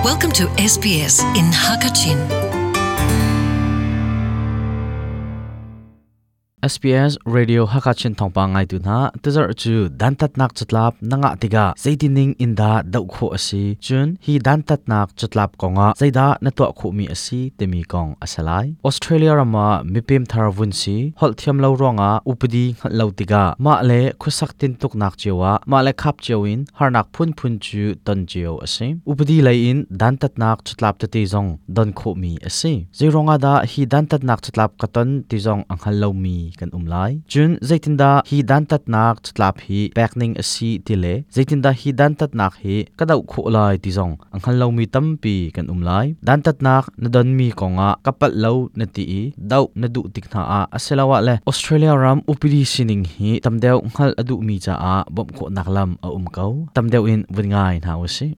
Welcome to SBS in Hakachin. SBS Radio Hakachin thawngpang ngaitu hna tuzarh cu dantatnak catlap na ngah tikah zeitining in dah doh khawh a si cun hi dantatnak catlap kongah zeidah na tuah khawhmi a si timi kong a si lai. Australia ram ah mipem thar vun si holh thiam lo ruangah upadi hngalh lo tikah mah le khuasak tintuknak cio ah mah le khap cio in harnak phunphun cu ton cio a si. Upadi lei in dantatnak catlap tete zong don khawhmi a si. Zeiruangah dah hi dantatnak catlap ka ton ti zong a hngal lomi kan um lai. Cun zeitindah hi dantatnak catlap hi pek ning a si ti le zeitindah hi dantatnak hi ka doh khawh lai ti zong a hngal lomi tampi kan um lai. Dantatnak na donmi kongah ka palh lo na ti i doh na duh tik hna ah asiloah le Australia ram upadi sining hi tam deuh hngalh a duhmi caah bawmh khawhnak lam a um ko. Tam deuh in vun ngai hna u sih.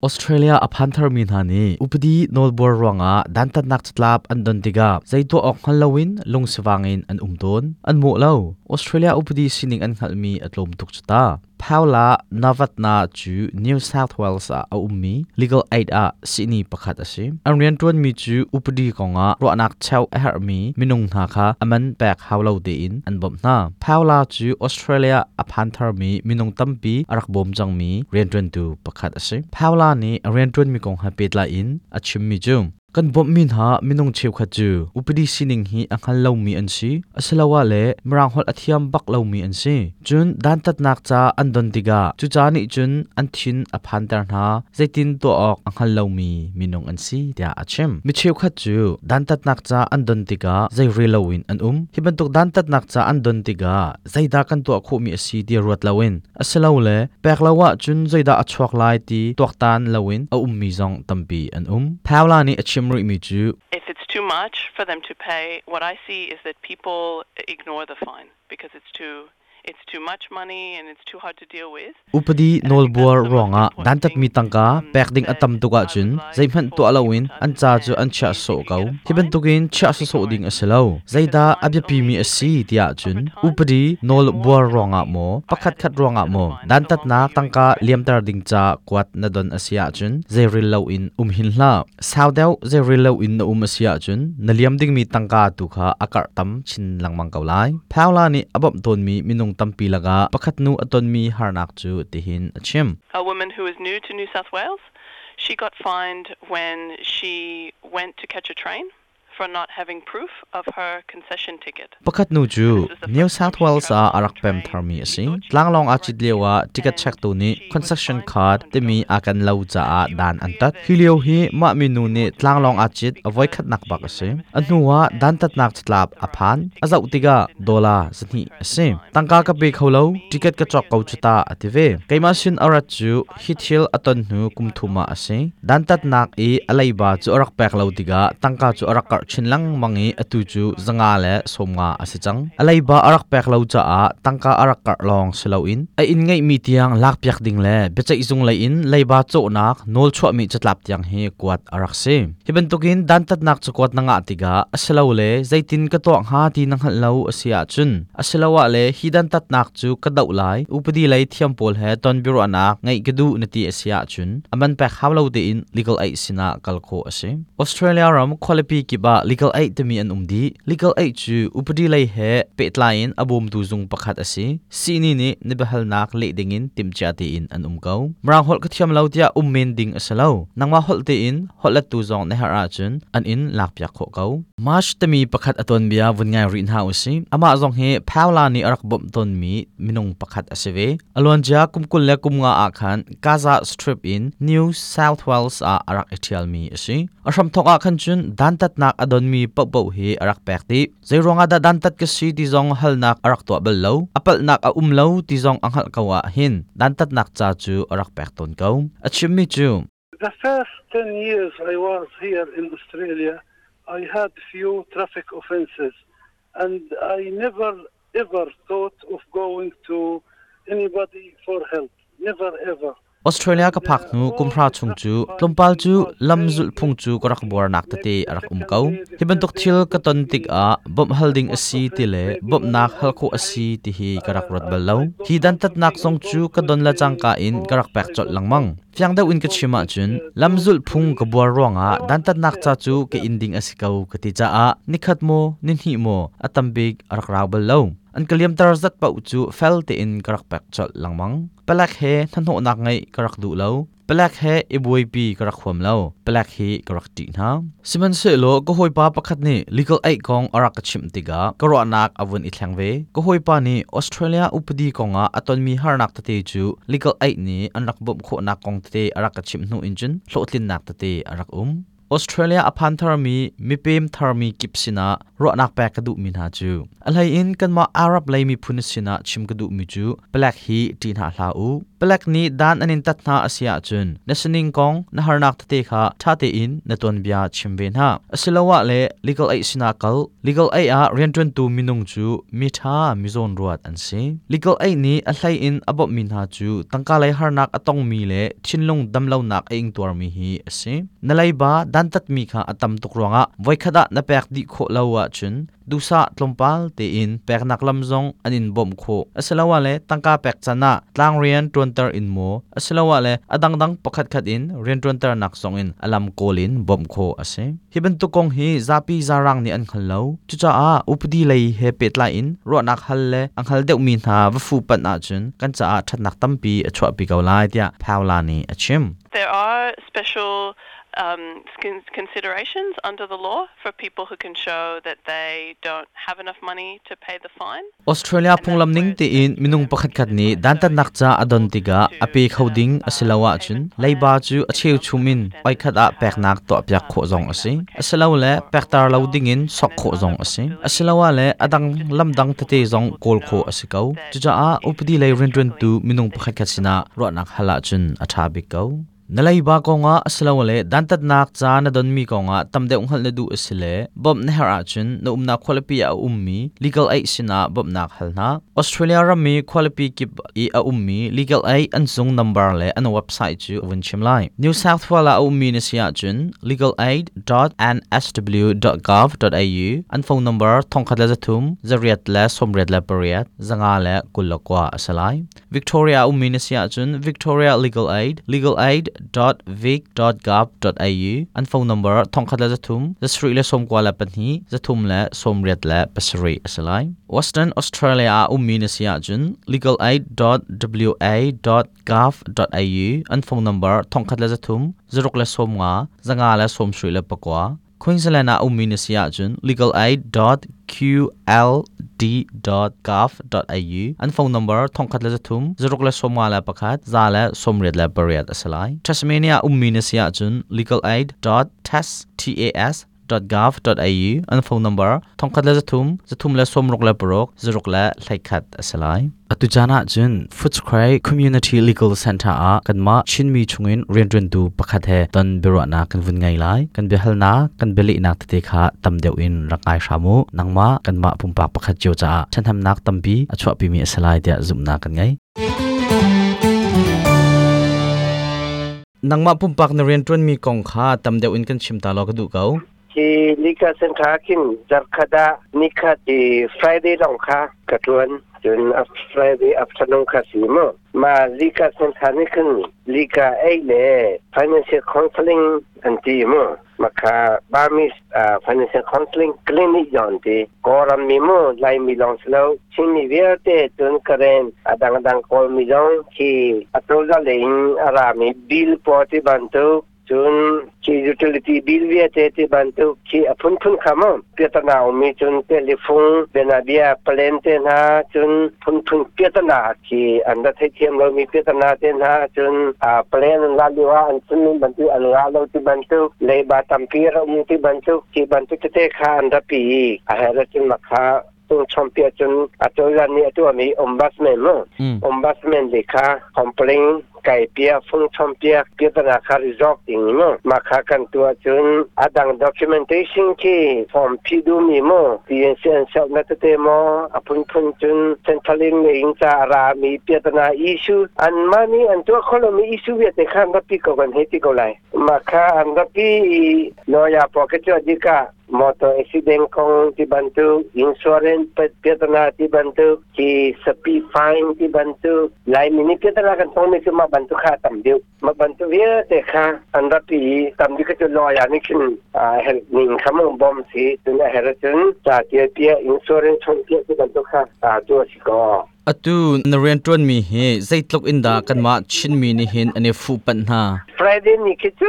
Australia a phan tharmi hna nih upadi nawlbuar ruangah dantatnak catlap an don tikah zei tuah awk hngal loin lungsivang in an um tawn. An mawh lo. Australia upadi sining an hngalhmi a tlawm tuk cu ta. Paula Navatna cu New South Wales ah a ummi legal aid ah sihni pakhat a si. An rianṭuanmi cu upadi kongah ruahnak cheuh a herhmi minung hna kha a man pek hau lo tein an bawmh hna. Paula cu Australia a phan tharmi minung tampi a rak bawm cangmi rianṭuantu pakhat a si. Paula nih a rianṭuanmi kong he pehtlai in a chimmi cu kan bawmhmi hna minung cheukhat cu upadi sining hi a hngal lomi an si asiloah le mirang holh a thiam bak lomi an si. Cun dantatnak ca an don tikah cu ca nih cun an thin a phanter hna zeitin tuah awk a hngal lomi minung an si tiah a chim. Mi cheukhat cu dantatnak ca an don tikah zei rel loin an um. Hi bantuk dantatnak ca an don tikah zeidah kan tuah khawhmi a si ti ruat loin asilole pek lo ahcun zeidah a chuak lai ti tuaktan loin a ummi zong tampi an um. Paula nih a chim rihmi cu If it's too much for them to pay, what I see is that people ignore the fine because it's too it's too much money and it's too hard to deal with. Upadi nawlbuar ruangah dantatmi tangka pek ding a tam tuk ahcun zeihmanh tuah loin an ca cu an chiah sawh ko. Hi bantukin chiah sawsawh ding a si lo. Zeidah a biapimi a si tiah cun upadi nawlbuar ruangah maw pakhatkhat ruangah maw dantatnak tangka liamter ding ca kuat na don a si ahcun zeirel loin um hin hlah. Sau deuh zeirel loin na um a si ahcun na liam dingmi tangka tu kha a karh tam chin lengmang ko lai. Paula nih a bawmh tawnmi minung tampi lakah pakhat nu a tonmi harnak cu tihin a chim. A woman who is new to New South Wales, she got fined when she went to catch a train for not having proof of her concession ticket. Pakhat nu cu New South Wales ah a rak pem tharmi a si. Tlanglawng aa cit lio ah ticket checktu nih concession card timi a kan lo caah dan an tat. Hi lio hi mah minu nih tlanglawng aa cit a voikhatnak bak a si. A hnu ah dantatnak catlap a phan. A zoh tikah dollar 2 a si. Tangka ka pe kho lo, ticket ka cawk ko cu ta a ti ve. Keimah sin a rat cu Hi thil a ton hnu kum thum ah a si. Dantatnak i a leiba cu a rak pek lo tikah tangka cu a rak karh chin lengmang i atu cu 150 a si cang. A leiba a rak pek lo caah tangka a rak karh lawng si loin a inn ngeihmi tiang lakpiak ding le biaceihzung lei in leiba cawhnak nawl chuahmi catlap tiang hi kuat a rak si. Hi bantukin dantatnak cakuat na ngah tikah asilole zeitin ka tuah hnga ti na hngalh lo a si ahcun asiloah le hi dantatnak cu ka doh lai upadi lei thiam pawl he ton biaruahnak ngeih ka duh na ti a si ahcun a man pek hau lo tein legal aid sinah kal khawh a si. Australia ram khualipi kip ah legal aid timi an um dih. Legal aid cu upadi lei he pehtlai in a bawmtu zung pakhat a si. Sihni nih na biahalnak leh dingin timhcia tein an um ko. Mirang holh ka thiam lo tiah um men ding a si lo. Nangmah holh tein holhlettu zong na herh ahcun an in lakpiak khawh ko. March timi pakhat a tuanbia vun ngai rih hna usih. Amah zong hi Paula nih a rak bawmh tawnmi minung pakhat a si ve. A luancia kum 25 ah khan Gaza Strip in New South Wales ah a rak i ṭhialmi a si. A hramthawk ah khan cun dantatnak a donmi paohpaoh hi a rak pek dih. Zeiruang ah dah dantat ka si ti zong halnak a rak tuah bal lo. A palhnak a um lo ti zong a hngalh ko ah hin dantatnak ca cu a rak pek tawn ko. A chimmi cu The first 10 years I was here in Australia, I had few traffic offenses and I never ever thought of going to anybody for help. Never ever. Australia ka phak hnu kumhra chung cu tlawmpal cu lam zulhphung cu ka rak buarnak tete a rak um ko. Hi bantuk thil ka ton tikah bawmh hal ding a si ti le bawmhnak hal khawh a si ti hi ka rak ruat bal lo. Hi dantatnak zong cu ka don le cangka in ka rak pek colh lengmang. Fiang deuh in ka chim ahcun lam zulhphung ka buar ruangah dantatnak ca cu ka in ding a si ko ka ti caah nikhat maw nihnih maw a tam bik a rak rau bal lo. An ka liamter zat paoh cu fel tein ka rak pek colh lengmang. Palek he hnahnawhnak ngeih ka rak duh lo. Palek he i buaipi ka rak huam lo. Palek hi ka rak ṭih hna. Sihmanhsehlaw ka hawipa pakhat nih legal aid kong a rak ka chimh tikah ka ruahnak a vun i thleng ve. Ka hawipa nih Australia upadi kongah a tonmi harnak tete cu legal aid nih an rak bawmh khawhnak kong tete a rak ka chimh hnu in cun hlawhtlinnak tete a rak um. Australia a phan tharmi mipem tharmi kip sinah ruahnak pek ka duhmi hna cu a hleiin kanmah Arab lei miphun sinah chim ka duhmi cu palek hi ṭih hna hlah u. Palek nih dan an in tat hna a si ahcun na sining kong na harnak tete kha ṭha tein na tuanbia chim ve hna. Asiloah le legal aid sinah kal. Legal aid ah rianṭuantu minung cu mi ṭha mi zawnruat an si. Legal aid nih a hleiin a bawmhmi hna cu tangka lei harnak a tongmi le thinlung damlonak a ingtuarmi hi a si. Na leiba dantatmi kha a tam tuk ruangah voikhat ah na pek dih khawh lo ahcun duhsah tlawmpal tein peknak lam zong an in bawmh khawh. Asiloah le tangka pek can ah tlangrian ṭuanter in maw asiloah le a dangdang pakhatkhat in rianṭuanternak zong in a lam kawl in bawmh khawh a si. Hi bantuk kong hi zapi zarang nih an hngal lo. Cucaah upadi lei he pehtlai in ruahnak hal le a hngal deuhmi hna va fuhpanh ahcun kan caah ṭhatnak tampi a chuahpi ko lai tiah Paula nih a chim. There are special considerations under the law for people who can show that they don't have enough money to pay the fine. Australia phunglam ning tein minung pakhatkhat nih dantatnak ca a don tikah a pe kho ding a si lo ahcun leiba cu a cheuchum in oikhat ah peknak tuahpiak khawh zong a si. Asilole pekter lo dingin sok khawh zong a si. Asiloah le a dang lamdang tete zong kawl khawh a si ko. Cucaah upadi lei rianṭuantu minung pakhatkhat sinah ruahnak hal ahcun a ṭha bik ko. Na leiba kongah asilole dantatnak ca na donmi kongah tam deuh hngalh na duh a si le bawmh na herh ahcun na umnak khualipi ah a ummi legal aid sinah bawmhnak hal hna. Australia ram i khualipi kip i a ummi legal aid an zung number le an website cu a vun chim lai. New South Wales ah a ummi na si ahcun legalaid.nsw.gov.au an phone number 13 8 98 529 a si lai. Victoria ummi na si ahcun Victoria Legal Aid legalaid.vic.gov.au an phone number 13 392 387 a si lai. Western Australia ah ummi na si ahcun legalaid.wa.gov.au an phone number 13 0 50 529. Queensland ah ummi na si ahcun legalaid.qld.gov.au an phone number 13 051 188 a si lai. Tasmania ummi na si ahcun legalaid.tas.gov.au an phone number 13 366 0 a si lai. Atu caan ahcun Footscray Community Legal Center ah kanmah Chinmi chungin rianṭuantu pakhat he ton biaruahnak kan vun ngei lai. Kan biahalnak, kan bialehnak tete kha tam deuh in rak ngai hram u. Nangmah kanmah pumpak pakhat cio caah ṭhahnemnak tampi a chuahpimi a si lai tiah zumhnak kan ngei. Nangmah pumpak na rianṭuanmi kong kha tam deuh in kan chim ta law ka duh ko. Hi Lika Center khin zarkhat ah nikhat i Friday lawng kha ka ṭuan. Cun Friday afternoon kha si mu. Ma Lika Center nih khin Lika ei le financial counseling an ti mu. Makha Burmese financial counseling clinic zong ti. Kawlram mi mu Laimi lawng si lo Chinmi vialte cun Karen a dangdang Kawlmi zong khi a cozah lei in a rami bill pawl ti bantuk cun khi utility bill vialte ti bantuk khi a phunphun kha mu piatana ummi cun telephone bianabia plan te hna cun phunphun piatana khi an ra theithiam lomi piatana te hna cun a plan an la lio ah an chimmi bantuk an ngah lo ti bantuk leiba tampi ra um ti bantuk khi bantuk tete kha an ra pi i a her cun makha tung chompi cun a cozah nih a tuahmi ombudsman mu ombudsman le kha complain. Kai pia phung chom piak piatana kha resolve ding mu. Ma kha kan tua cun adang documentation khi form phi du mi mu TNC an self na tete mo apun phun cun Centrelink le in cha ra mi piatana issue an mani an tua kholo mi issue viate khan rapi ko kan he ti ko lai. Ma kha an rapi lawyer po ke chu adika motor accident kong ti bantuk, insurance piatana ti bantuk, ki speed fine ti bantuk, lai mini piatana kan tong mi chu ma bantuk kha tam deuh. Ma bantuk vialte kha an rapi tam deuh chu lawyer nih khin help ning kha mong bom si cun a her cun cha tia tia insurance chon tia ti bantuk kha tu si ko. Atu na rian tuan mi hi zeitluk in dah kanmah Chinmi nih hin an i fuh panh hna? Friday ni khi cu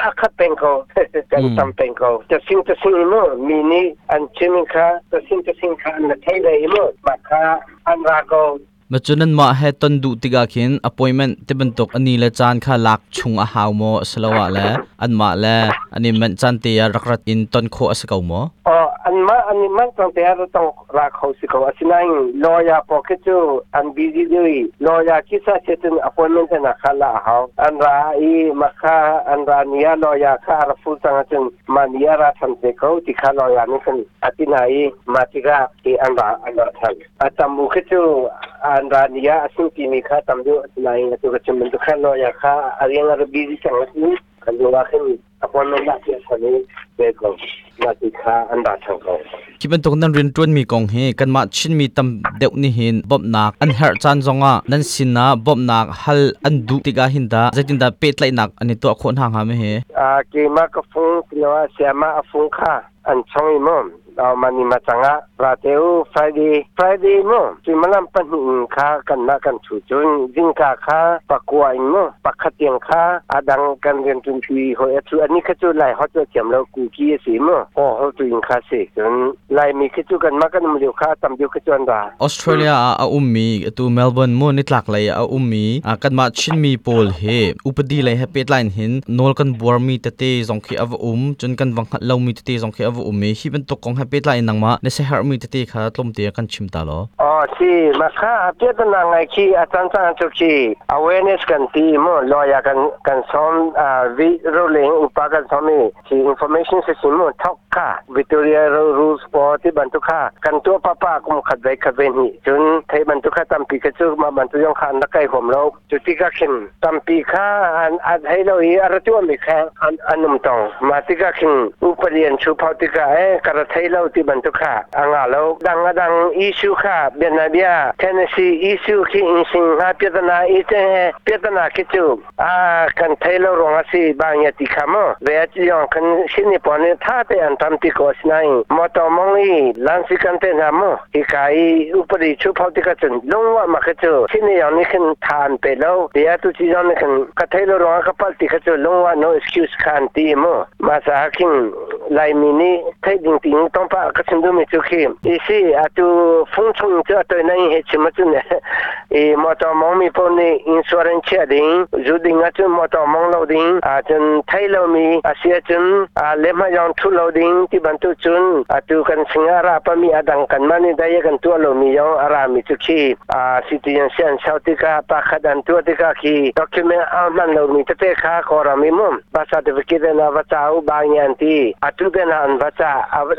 a khat peng ko. Kan tam peng ko. Tasing tasing mu mi nih an chim kha tasing tasing kha an thei ve mu ma kha an ra ko. Ma cu nan mah he ton duh tikah khin appointment ti bantuk ani le caan kha lak chung a hau maw asiloah le anmah le an i manh caan te ah rak rat in ton khawh a si ko maw? Oh, anmah an i manh cang te ah tong ra kho si ko. Asinain lawyer pawl khi cu an busy deuh i lawyer khi sa se cun appointment na kha la a hau. An ra i ma kha an ra ni ah lawyer kha a ra full cang ahcun ma ni a ra than te ko ti kha lawyer nih khan a ti hna i ma tikah i an ra an ra than. A tam u khi cu an ra ni ah a sing timi kha tam deuh. Asinain atu ka chim bantuk khan lawyer kha a riang a ra busy cang ahcun kan lu ah khin appointment lah ti a i ve ko mah ti kha an ra thang ko. Hi bantuk nan rian ṭuanmi kong hi kanmah Chinmi tam deuh nih hin bawmhnak an herh caan zongah nan sinah bawmhnak hal an duh tikah hin dah zeitindah pehtlaihnak an i tuah khawh hna hnga ma hi? Keimah ka fung tilo sayama a fung kha an chong i mu mani ma changa rateu Friday Friday mu suimalam 2 in kha kan na kan chu cun zingka kha pakua in mu pakhat tiang kha adang kan rian tun pi hoi achu ani kha chu lai hot thiam lo ku ki si mu ho ho tu in kha si cun lai mi khi chu kan ma kan um liu kha tam diu kha chu an ra. Australia ah a ummi atu Melbourne mu nitlak lei a ummi kanmah Chinmi pawl hi upadi lei he pehtlai hin nawl kan buarmi tete zong khi a va um cun kan va hngalh lomi tete zong khi a va um i hi bantuk kong he pehtlai in nangmah na siaherhmi tete kha tlawmte kan chim ta law. Oh si ma kha piatana ngai khi a cang cang chu khi awareness kan ti mu lawyer kan kan som vi rolling upa kan som i khi information system mu thok kha Victoria Rules po ti bantuk kha kan tua papa kum khat ve khat ve ni cun thei bantuk kha tampi kha chu ma bantuk yong khan na kai hom lo. Cu tikah khin tampi kha an an hei lo i a ra tuahmi kha an an um tong. Mah tikah khin upadi an chuphau tikah e ka ra thei lo ti bantuk kha a nga lo. Dang a dang issue kha bianabia Tennessee issue khi in sing ha piatana i te he piatana khi cu a kan thei lo ruang a si bang ya ti kha mo ve a chi yong kan sini pon ni tha te an tam ti ko sinain motor mong i lansi kan te na mo hika i upadi chuphau tikah cun lungwa ma kha cu sini yong nih khin tha an pe lo tia tu chi yong nih khin ka thei lo ruangah ka pal ti kha cu lungwa no excuse kha an ti mu ma sa khin Laimi nih theih ding ting tongpa ka chim duhmi cu khi isi atu fung chung cu atoi nai he chim acun i motor mong mi paoh nih insurance chiah ding zu ding ahcun motor mong lo ding ahcun thei lomi a si ahcun lehmah yong thu lo ding ti bantuk cun atu kan sing a ra pami a dang kan mah nih dai kan tuah lomi yong a ra mi cu khi citizen si an sau tikah pakhat an tuah tikah khi document a hman lomi tete kha kawram i mum birth certificate na va ca u ba ngi an ti atu te na an va ca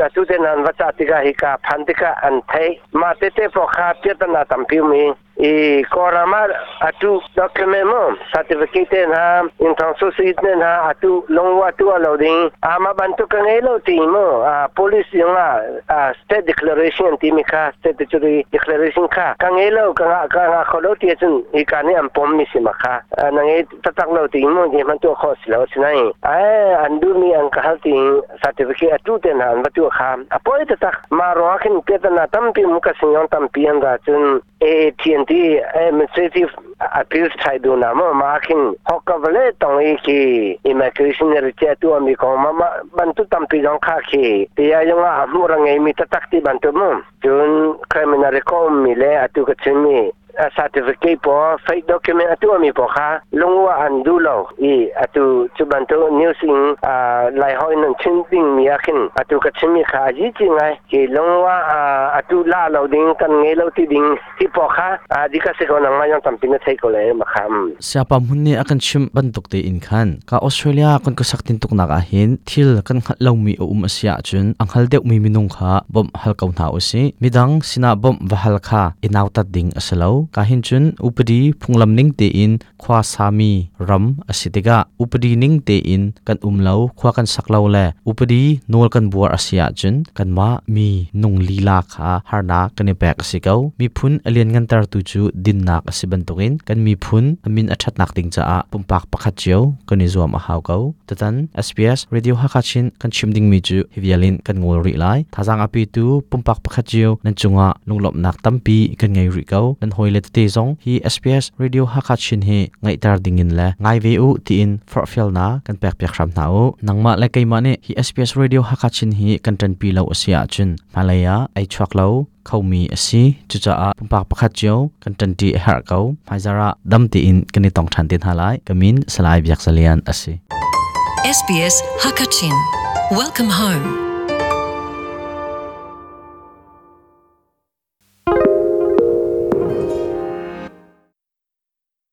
atu te na an va ca tikah hika phan tikah an thei mah tete po kha piatana tampi mi i Kawlram ah atu document mu certificate te hna inthong susit te hna atu lungwa tu lo ding ama bantuk ka ngei lo ti mu police yung ah state declaration ti mi kha statutory declaration kha ka ngei lo ka nga ka nga kho lo ti cun hi ka nih an pom mi si ma kha na ngei taktak lo ti mu je man tu kho si lo sinai ai an du mi an ka hal ti certificate atu te hna an va tu kha apoi taktak ma ro khin te na tampi mu ka sing tampi an ra cun AATNT Administrative Appeals Tribunal mo ma khin hokka vale tong i ki immigration re che tu ami kong ma ma bantu tampi jong kha khi tia yung a mu ra ngei mi tatak ti bantu mu cun criminal record mi le atu ka chin mi Certificate pawl, fake document a tuahmi pawl kha lungwa an duh lo i atu cu bantuk news in Laiholh in an chim dingmi ah khin atu ka chimmi kha a zi ngai. Hi lungwa atu la lo ding kan ngei lo ti ding hi pawl kha dika si ko, nangmah yong tampi na thei ko le ma kham. Siapa hmun nih a kan chimh bantuk tein khan ka Australia kan khuasak tin tuknak ah hin thil kan hngalh lomi a um a si ahcun a hngal deuhmi minung kha bawmh hal ko hna usih. Midang sinah bawmh va hal kha i nautat ding a si lo. Ka hin cun upadi phunglam ning tein khua sami ram a si tikah upadi ning tein kan um lo, khua kan sak lo le upadi nawl kan buar a si ahcun kanmah mi nung lila kha harnak kan i pek a si ko. Miphun a lianngantertu cu dinnak a si bantukin kan miphun a min a ṭhatnak ding caah pumpak pakhat cio kan i zuam a hau ko. Tutan SBS Radio Hakha Chin kan chim dingmi cu hi vial in kan ngol rih lai. Thazaang a petu pumpak pakhat cio nan cungah lunglawmhnak tampi kan ngei rih ko. Nan hawile tete zong hi SBS Radio Hakha Chin hi ngaihter dingin le ngai ve u tiin forhfialnak kan pekpiak hram hna u. Nangmah le keimah nih hi SBS Radio Hakha Chin hi kan ṭanpi lo a si ahcun hmailei ah ei chuak lo khomi a si. Cucaah pumpak pakhat cio kan ṭanṭi a herh ko. Hmaizarh ah dam tein kan i tong ṭhan te hna lai. Ka min Salai Biak Zalian a si. SBS Hakachin. Welcome home.